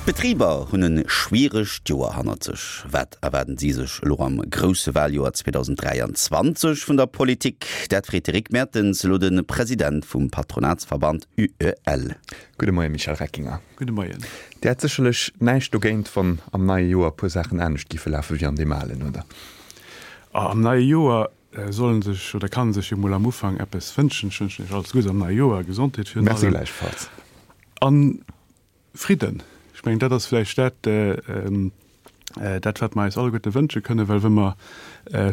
D'Betriber hunn e schwieregt Joer hannert sech. Wat erwaarden si sech elo am grousse Waljoer 2023 vun der Politik? Dat freet de Rick Mertens elo de President vum Patronatsverband UEL. Gudde Moien, Michel Reckinger. Gudde Moien. Dir hätt sécherlech näischt dogéint, wann am neie Joer e puer Saachen anescht giffe lafe wéi an deem alen, oder? Am neie Joer soll sech oder kann sech jo mol am Ufank eppes wënschen. Ech wënschen Iech alles Guddes am neie Joer, Gesondheet virun allem. Merci gläichfalls. An Fridden, ech mengen, dat ass vläicht dat, dat wat mer eis alleguerte wënsche kënnen, well wa mer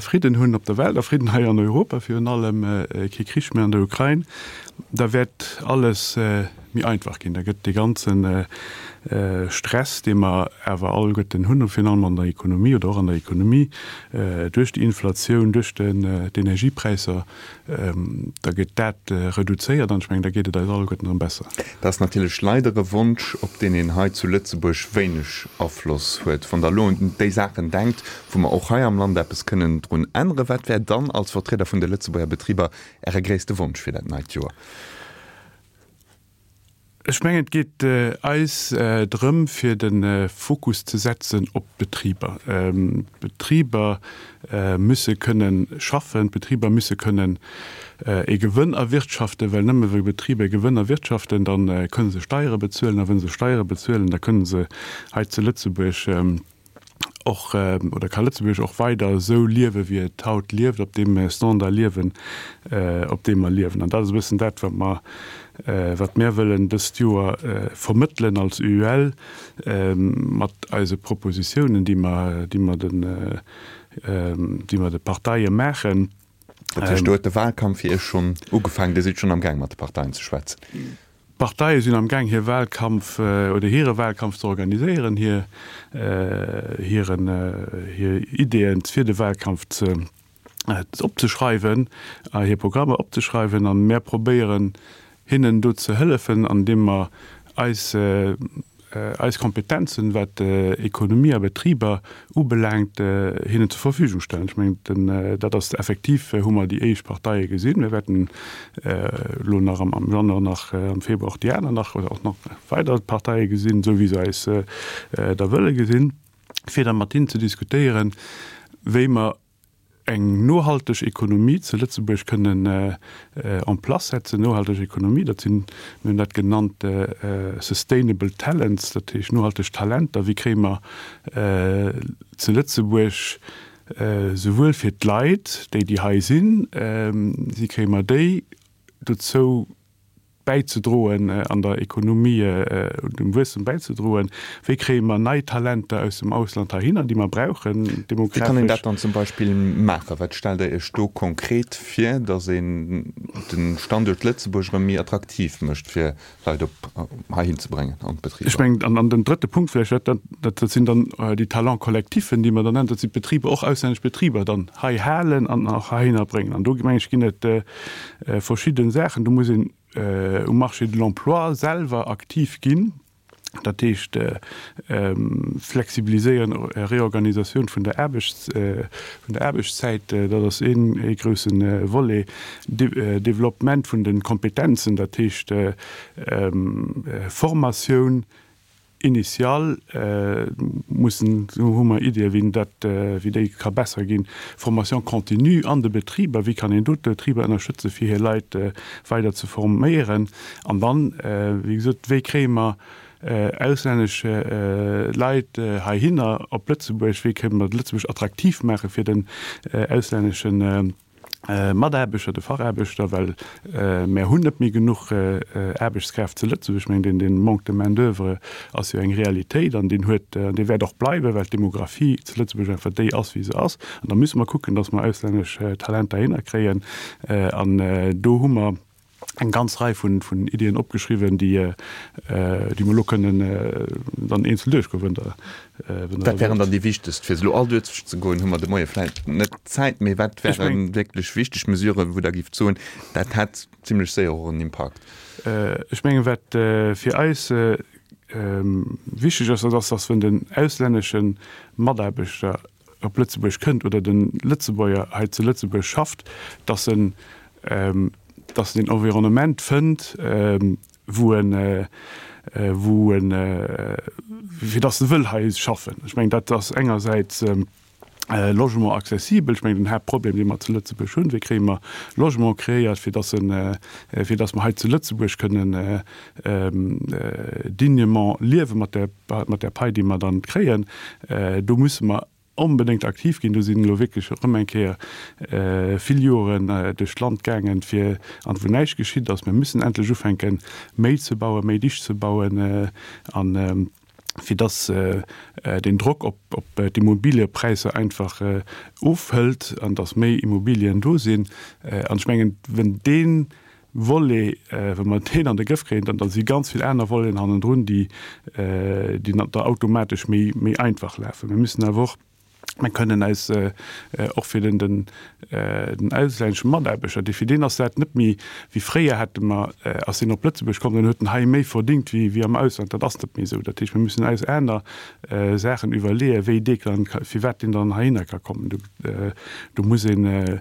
Fridden hunn op der Welt a Fridden hei an Europa virun allem, kee Krich méi an der Ukrain, da wäert alles méi einfach ginn. Da gëtt dee ganze Stress, dee mer awer alleguerten hunn, virun allem an der Ekonomie oder och an der Ekonomie duerch déi Inflatioun, duerch d'Energiepräisser, Da gëtt dat reduzéiert an ech mengen, da geet et eis alleguerten erëm besser. Dat ass natierlech leider e Wonsch, op deen een hei zu Lëtzebuerg wéineg Afloss huet. Wann Der elo un déi Saachen denkt, wou mer och hei am Land eppes kënnen drun änneren, wat wär dann als Vertrieder vun de Lëtzebuerger Betriber Äre gréisste Wonsch fir dat neit Joer? Ech mengen, et geet eis drëm, fir de Fokus ze setzen op d'Betriber. D'Betriber musse kënne schaffen, d'Betriber musse kënnen e Gewënn erwirtschaften, well nëmme wa Betriber e Gewënn erwirtschaften, da kënne se Steiere bezuelen, a wa se Steiere bezuelen, da kënne se hei zu Lëtzebuerg och, oder ka Lëtzebuerg och weider esou liewe wéi et haut lieft, op deem Standard liewen, op deem mer liewen. An dat ass e bëssen dat, wat mer, wat mär wëllen dëst Joer vermëttelen als UEL mat eise Propositiounen, déi mer, déi mer den, déi mer de Parteie maachen. Dat heescht, do huet de Wahlkampf fir Iech schonn ugefaangen, Dir sidd schonn am Gaang mat de Parteien ze schwätzen? D'Parteie sinn am Gaang hir Wahlkampf oder hire Wahlkampf ze organiséieren, hir hiren hir Ideeën fir de Wahlkampf ze opzeschreiwen a hir Programmer opzeschreiwen. An mär probéieren hinnen do ze hëllefen, andeem mer eis eis Kompetenzen, wat Ekonomie a Betriber ubelaangt, hinnen zur Verfügung stellen. Ech mengen, dat ass effektiv, hu mer déi éischt Parteie gesinn. Mir wäerten elo nach am Januar, nach am Februar och déi aner nach oder och nach weider Parteie gesinn, esou wéi se eis da wëlle gesinn, fir da mat hinnen ze diskutéieren, wéi mer eng nohalteg Ekonomie zu Lëtzebuerg kënnen en place setzen. Nohalteg Ekonomie, dat sinn, mir hunn dat genannt sustainable talents, dat heescht nohalteg Talenter. Wéi kréie mer zu Lëtzebuerg souwuel fir d'Leit, déi déi hei sinn, wéi kréie mer déi dozou, bäizedroen, an der Ekonomie dem Wuesstem bäizedroen? Wéi kréie mer nei Talenter aus dem Ausland heihinner, déi mer brauchen demografesch? Wéi kann een dat dann zum Beispill maachen? Wat stellt Der Iech do konkret vir, datt een de Standuert Lëtzebuerg erëm méi attraktiv mécht, fir Leit op heihin ze bréngen an d'Betriber? Ech mengen, an den drëtte Punkt vläicht, dat, dat sinn dann déi Talents collectifs, déi mer dann nennen, dat sinn d'Betriber, och auslännesch Betriber dann hei halen an och heihinner bréngen. An do, meng ech, ginn et verschidden Saachen. Do muss een um Marché de l'emploi selwer aktiv ginn, dat heescht flexibiliséieren, Reorganisatioun vun der Aarbechts, vun der Aarbechtszäit, dat ass een ee grousse Volet, Developpement vun de Kompetenzen, dat heescht Formatioun, Initial mussen, do hu mer Iddien, wéi dat, wéi déi ka besser ginn. Formation continue an de Betriber, wéi kann een do d'Betriber ënnerstëtzen, fir hir Leit weider ze forméieren? An dann, wéi gesot, wéi kréie mer auslännesch Leit heihinner op Lëtzebuerg? Wéi kënne mer Lëtzebuerg attraktiv maache fir den auslänneschen Mataarbechter, de Fachaarbechter, well mär hunn net méi genuch Aarbechtskräft zu Lëtzebuerg. Ech mengen, deen Manque de main d'oeuvre ass jo eng Realitéit an deen huet an dee wäert och bleiwen, well d'Demographie zu Lëtzebuerg einfach déi ass, wéi se ass. An da musse mer kucken, datt mer auslännesch Talenter hinnerkréien. An do hu mer eng ganz Rei vun Iddien opgeschriwwen, déi mer elo kënnen dann eenzel duerchgoen, wann Der wëllt. Wat wären dann déi wichtegst? Fir se elo all duerchzegoen, hu mer de Moie vläicht net d'Zäit, mee wat wäre wierklech wichteg Mesuren, wou Der géift soen, dat hätt zimlech séier och en Impakt? Ech mengen, wat fir eis wichteg ass, dat ass, dass wenn den auslännesche Mataarbechter op Lëtzebuerg kënnt oder de Lëtzebuerger hei zu Lëtzebuerg schafft, dass en, dass en een Environnement fënnt, wou en. wou en, fir dass e wëll hei schaffen. Ech mengen, dat ass engersäits Logement accessibel. Ech mengen, den Haaptproblem, dee mer zu Lëtzebuerg hunn, wéi kréie mer Logement kreéiert, fir dass en, fir dass mer hei zu Lëtzebuerg kënnen dignement liewe mat där, mat där Pai, déi mer dann kréien. Do musse mer onbedéngt aktiv ginn. Do sinn elo wierklech erëm eng Kéier vill Joren duerch d'Land gaangen, fir, an wou näischt geschitt ass. Mir müssen endlech ufänken, méi ze bauen, méi dicht ze bauen an fir dass den Drock op d'Immobiliëpräisser einfach ofhëlt an dass méi Immobilien do sinn. An ech mengen, wenn dee Volet, wa mer deen an de Grëff kréien, dann da si ganz vill aner Voleten hannendrun, déi da automatesch méi einfach lafen. Mir müssen awer och, mir kënnen eis och fir den den auslännesche Mataarbechter, dee fir deen ass dat net méi wéi fréier, hätte mer, ass deen op Lëtzebuerg komm, dann huet en hei méi verdingt wéi wéi am Ausland. Dat ass net méi esou. Dat heescht, mir müssen eis aner Saachen iwwerleeën, wéi dee kann, firwat deen dann heihinner ka kommen. Do do muss een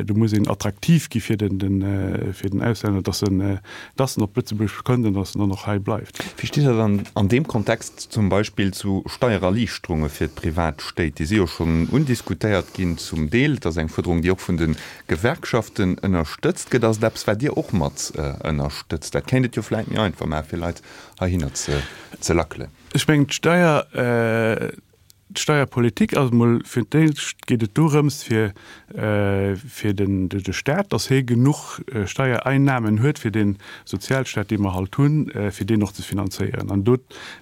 Do muss een attraktiv gi fir den Auslänner, dass en dass en op Lëtzebuerg kënnt an dass en dann och hei bleift. Wéi steet Der dann an deem Kontext zum Beispill zu Steiererliichterunge fir d'Privatstéit? Déi si jo schonn undiskutéiert ginn zum Deel. Et ass eng Fuerderung, déi och vun de Gewerkschaften ënnerstëtzt gëtt. Ass et eppes, wat Dir och mat ënnerstëtzt? Dat kéint et jo vläicht méi einfach maachen, fir Leit heihinner ze lackelen. Ech mengen, d'Steier, D'Steierpolitik ass emol, fir d'éischt geet et dorëms, fir fir den de Staat, datt hie genuch Steiereinnahmen huet, fir dee Sozialstaat, dee mer halt hunn, fir deen och ze finanzéieren. An do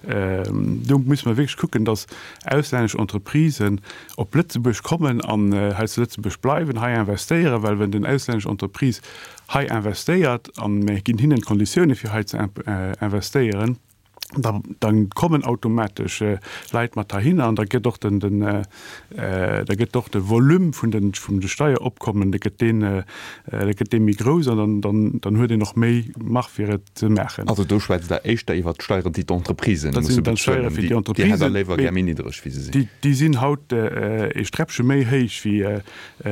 do musse mer wierklech kucken, datt auslännesch Entreprisen op Lëtzebuerg kommen an hei zu Lëtzebuerg bleiwen, hei investéieren, well wenn den auslännesch Entreprise hei investéiert a mir ginn hinnen d'Konditioune fir hei ze investéieren, da dann kommen automatesch Leit mat heihinner an da gëtt och den, den, da gëtt och de Volume vun den, vun de Steieropkommen, da gëtt deen, da gëtt dee méi grouss an dann, dann, dann huet een och méi Marge fir et ze maachen. Also do schwätzt Der éischter iwwert d'Steieren, déi d'Entreprisen musse bezuelen, déi, déi hätt Der léiwer gär méi niddreg wéi se sinn. Déi, déi sinn haut ee Sträppche méi héich wéi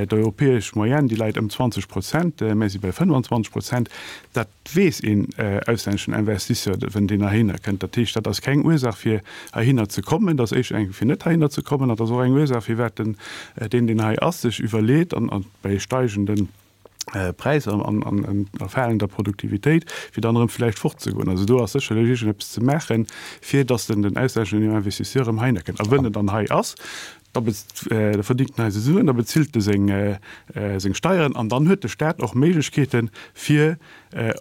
d'europäesch Moyenne, déi läit ëm 20 Prozent, mär si bei 25 Prozent. Dat weess een auslänneschen Investisseur, wenn deen heihinner kënnt. Dat heescht, dat ass keng Ursaach fir heihinner ze kommen, dat ass éischter eng fir net heihinner ze kommen, an dat ass och eng Ursaach firwat den, deen deen hei ass, sech iwwerleet an bei steigende Präisser an a falender Produktivitéit, fir dann erëm vläicht fortzegoen. Also do ass sécherlech iergendeppes ze maachen, fir datt den den auslänneschen Investisseur erëm heihinner kënnt. A wënn en dann hei ass, Da verdingt en eise Suen, da bezilt e seng Steieren an dann huet de Staat och Méiglechkeeten, fir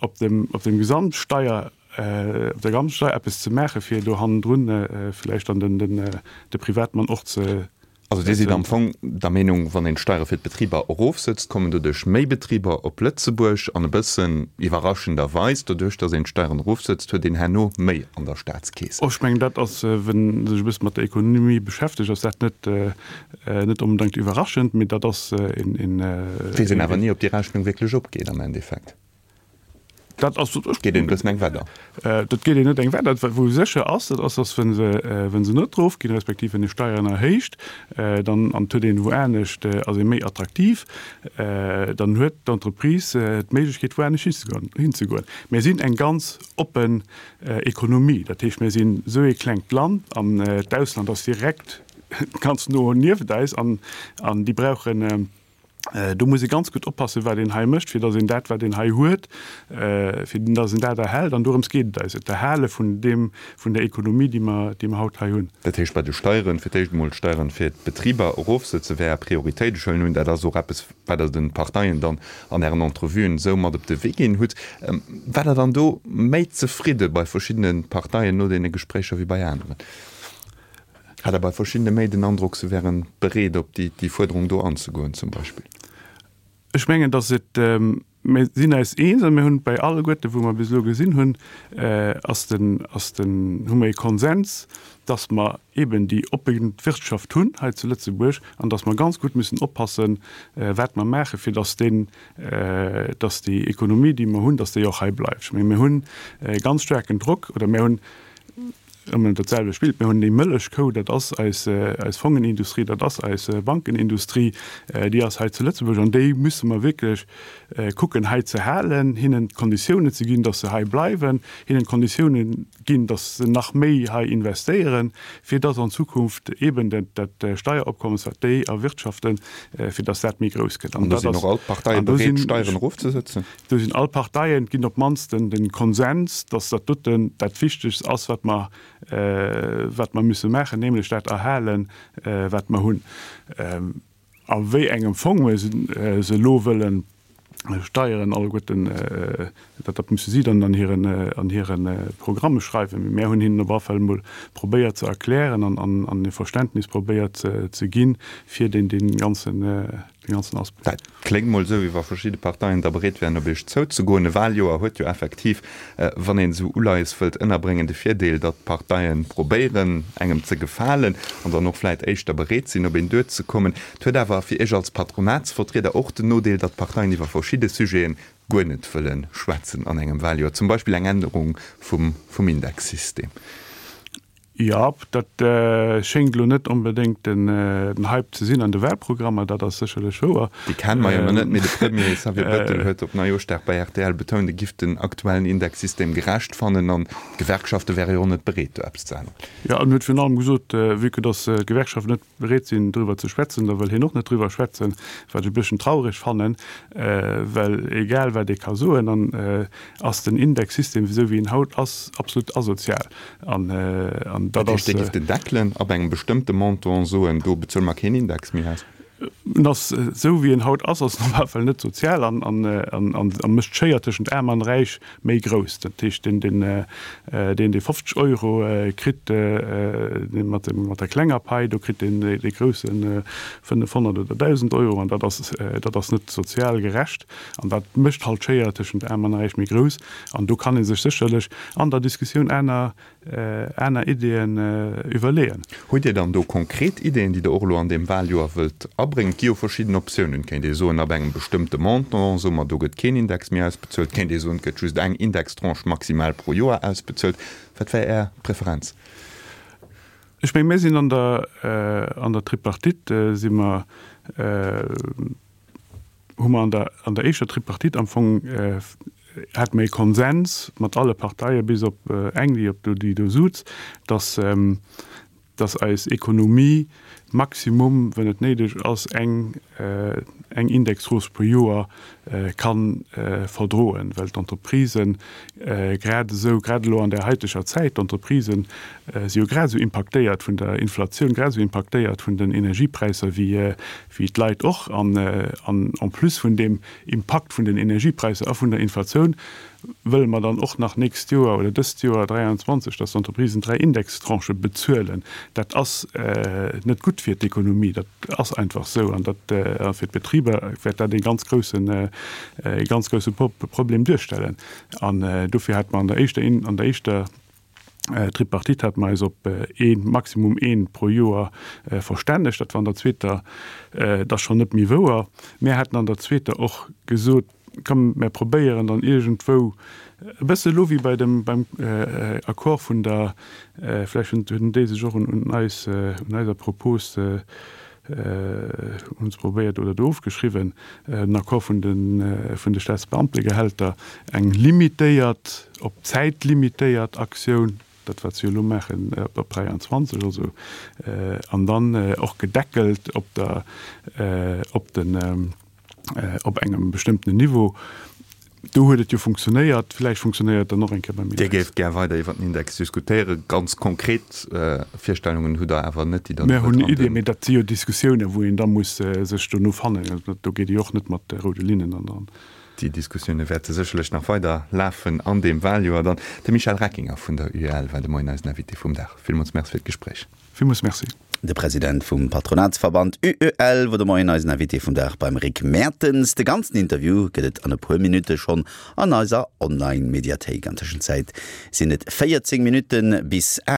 op dem Gesamtsteier, op der Gesamtsteier eppes ze maachen, fir do hannendrun vläicht dann de Privatmann och ze. Also Dir sidd am Fong der Meenung, wann een d'Steiere fir d'Betriber erofsëtzt, kommen doduerch méi Betriber op Lëtzebuerg an e bëssen iwwerraschenderweis, doduerch datt een d'Steieren erofsëtzt, huet een herno méi an der Staatskeess. Och ech mengen, dat ass, wenn ee sech e bësse mat der Ekonomie beschäftegt, ass dat net, net onbedéngt iwwerraschend, mee dat ass een, een. Weess een awer ni, ob déi Rechnung wierklech opgeet am Endeffekt. Dat ass. Geet een e bëssen eng Wett an. Dat geet een net eng Wett an. Wou sécher ass, dat ass, datt wa se, wa se net erofginn, respektiv wenn ee Steieren erhéicht, dann, an et huet een wou anescht, ass ee méi attraktiv, dann huet d'Entreprise d'Méiglechkeet, wou anescht hinzegoen, hinzegoen. Mir sinn eng ganz oppen Ekonomie. Dat heescht, mir sinn esou ee klengt Land an d'Ausland ass direkt ganz no nieft eis an déi brauchen, do muss ee ganz gutt oppassen, wat een hei mécht, fir datt een dat, wat een hei huet, fir datt een dat erhält. An dorëms geet et eis, et d'Erhale vun deem, vun der Ekonomie, déi mer, déi mer haut hei hunn. Dat heescht, bei de Steieren, fir d'éischt emol d'Steieren fir d'Betriber erofsëtzen, wär Är Prioritéit. Ech huelen un, dat ass och eppes, wat Der de Parteien dann an Ären Entrevuen esou mat op de Wee ginn hutt. War Der dann do méi zefridde bei verschiddene Parteien no deene Gespréicher wéi bei aneren? Hat Der bei verschiddene méi den Androck, se wäre bereet op déi Fuerderung do anzegoen zum Beispill? Ech mengen, datt et, mir sinn eis eens a mir hunn bei alleguerte wou mer bis elo gesinn hunn, ass den, ass den, hu mer ee Konsens, datt mer eben déi oppe Wirtschaft hunn hei zu Lëtzebuerg an datt mer ganz gutt müssen oppassen, wat mer maachen, fir datt deen, datt déi Ekonomie, déi mer hunn, datt déi och hei bleift. Ech menge mir hunn e ganz staarken Drock oder mir hunn. Ëmmer dat selwecht Bild. Mir hunn déi Mëllechkou, dat ass eis, eis Fongenindustrie, dat ass eis Bankenindustrie, déi ass hei zu Lëtzebuerg an déi musse mer wierklech kucken hei ze halen, hinnen d'Konditiounen ze ginn, dass se hei bleiwen, hinnen d'Konditiounen ginn, dass se nach méi hei investéieren, fir dass an Zukunft eeben dat, dat Steieropkommes, wat déi erwirtschaften, fir dass dat méi grouss gëtt. An do sinn och all d'Parteie bereet, d'Steieren erofzesëtzen? Do sinn all Parteien, et ginn op d'mannst den Konsens, dass dat doten dat Wichtegst ass, wat mer, wat mer müsse maachen, nämlech dat erhalen, wat mer hunn. A wéi engem Fong mer se elo wëllen steieren alleguerten, dat, dat musse si dann an hiren, an hire Programme schreiwen. Mee mär hunn hinnen op alle Fall emol probéiert ze erklären an, an, an e Verständnis probéiert ze ginn, fir deen, dee ganzen, dee ganzen Aspekt. Dat kléngt mol esou, wéi wa verschidde Parteien da bereet wären, op Iech zouzegoen. E Wahljoer huet jo effektiv, wann een esou Uleies wëllt ënnerbréngen, de Virdeel, datt d'Parteien probéieren, engem ze gefalen an dann och vläit éischter bereet sinn, op een duerzekommen. Et huet awer fir Iech als Patronatsvertrieder och den Nodeel, datt d'Parteien iwwer verschidde Sujeten guer net wëlle schwätzen an engem Wahljoer, zum Beispill eng Ännerung vum Indexsystem. Jo, dat schéngt elo net onbedéngt den Hype ze sinn an de Wahlprogrammer, dat ass sécherlech wouer. Déi kenne mer jo nach net, mee de Premier Xavier Bettel huet op Neijooschdag bei rtl betount, e giff den aktuellen Indexsystem gerecht fannen an d'Gewerkschafte wäre jo och net bereet, do eppes ze änneren. Jo, en huet virun allem gesot, vue que datt d'Gewerkschaften net bereet sinn, driwwer ze schwätzen, da wëll hien och net driwwer schwätzen, wat ech e bësschen traureg fannen, well egal wat ee ka soen, an ass den Indexsystem, esou wéi en haut ass, absolut asozial. An, an dat ass. Dat heescht, Dir giff den deckelen ab engem bestëmmte Montant, soen, do bezuele mer keen Index méi aus? En ass, esou wéi en haut ass, ass en op alle Fall net sozial an, an, an, a mécht d'Schéier tëschent Aarm an Räich méi grouss. Dat heescht, deen, deen, deen, dee 50 Euro kritt, dee mat dem, mat der klenger Pai, do kritt deen, dee groussen 500 oder 1.000 Euro. An dat ass, dat ass net sozial gerecht. An dat mécht halt d'Schéier tëschent Aarm an Räich méi grouss. An do kann ee sech sécherlech an der Diskussioun aner, aner Ideeën iwwerleeën. Hutt Dir dann do konkret Ideeën, déi Der och elo an deem Wahljoer wëllt abréngen? Et gi jo verschidden Optiounen. Et kéint ee soen, ab engem bestëmmte Montant soe mer, do gëtt keen Index méi ausbezuelt. Et kéint ee soen, et gëtt just eng Indextranche maximal pro Joer ausbezuelt. Wat wär Är Preferenz? Ech menge mir sinn an der, an der Tripartite si mer, hu mer an der, an der éischter Tripartite am Fong hate mer ee Konsens mat alle Parteie bis op eng, déi op do, déi do suz, dass, dass eis Ekonomie maximum, wann et néideg ass, eng, eng Indexhausse pro Joer ka verdroen, well d'Entreprisen grad esou, grad elo an där haiteger Zäit, d'Entreprisen si jo grad esou impaktéiert vun der Inflatioun, grad esou impaktéiert vun den Energiepräisser wéi, wéi d'Leit och, an en plus vun deem Impakt vun den Energiepräisser a vun der Inflatioun wëlle mer dann och nach nächst Joer oder dëst Joer 23, dass d'Entreprisen 3 Indextranchë bezuelen. Dat ass net gutt fir d'Ekonomie, dat ass einfach esou. An dat a fir d'Betriber wäert dat ee ganz groussen, ee ganz grousse Problem duerstellen. An dofir hate mer an der éischter, an der éischter Tripartite hate mer eis op ee, maximum een pro Joer verstännegt. Dat war an der zweeter da schonn net méi wouer. Mir haten an der zweeter och gesot, komm mir probéieren dann iergendwou e bësse elo wéi bei dem, beim Accord vun der, vläicht hunn déi sech och un eis, un eiser Propos Hunn se probéiert oder do ofgeschriwwen, den Accord vun de vun de Staatsbeamtegehälter, eng limitéiert, op d'Zäit limitéiert Aktioun, dat wat se jo elo maachen op 23 also, an dann och gedeckelt op der op den op engem bestëmmtenen Niveau. Do huet et jo funktionéiert, villäicht funktionéiert et dann och eng Kéier beim Index. Dir géift gär weider iwwer den Index diskutéieren. Ganz konkret Virstellungen hutt Der awer net, déi Der Mir hunn Iddien, mee dat si jo Diskussiounen, wou een da muss sech dono fannen. Do geet ee jo och net mat roude Linnen an. Déi Diskussioune wäerte sécherlech nach weider lafen an deem Waljoer dann. De Michel Reckinger vun der UEL war de Moien eisen Invité vum Dag. Villmools Merci fir d'Gespréich. Villmools Merci. De President vum Patronatsverband UEL wor de Moien eisen Invité vum Dag beim Rick Mertens. De ganzen Interview gëtt et an e puer Minutte schonn an eiser Online-Mediathéik. An Tëschenzäit sinn et 14 Minutte bis 8.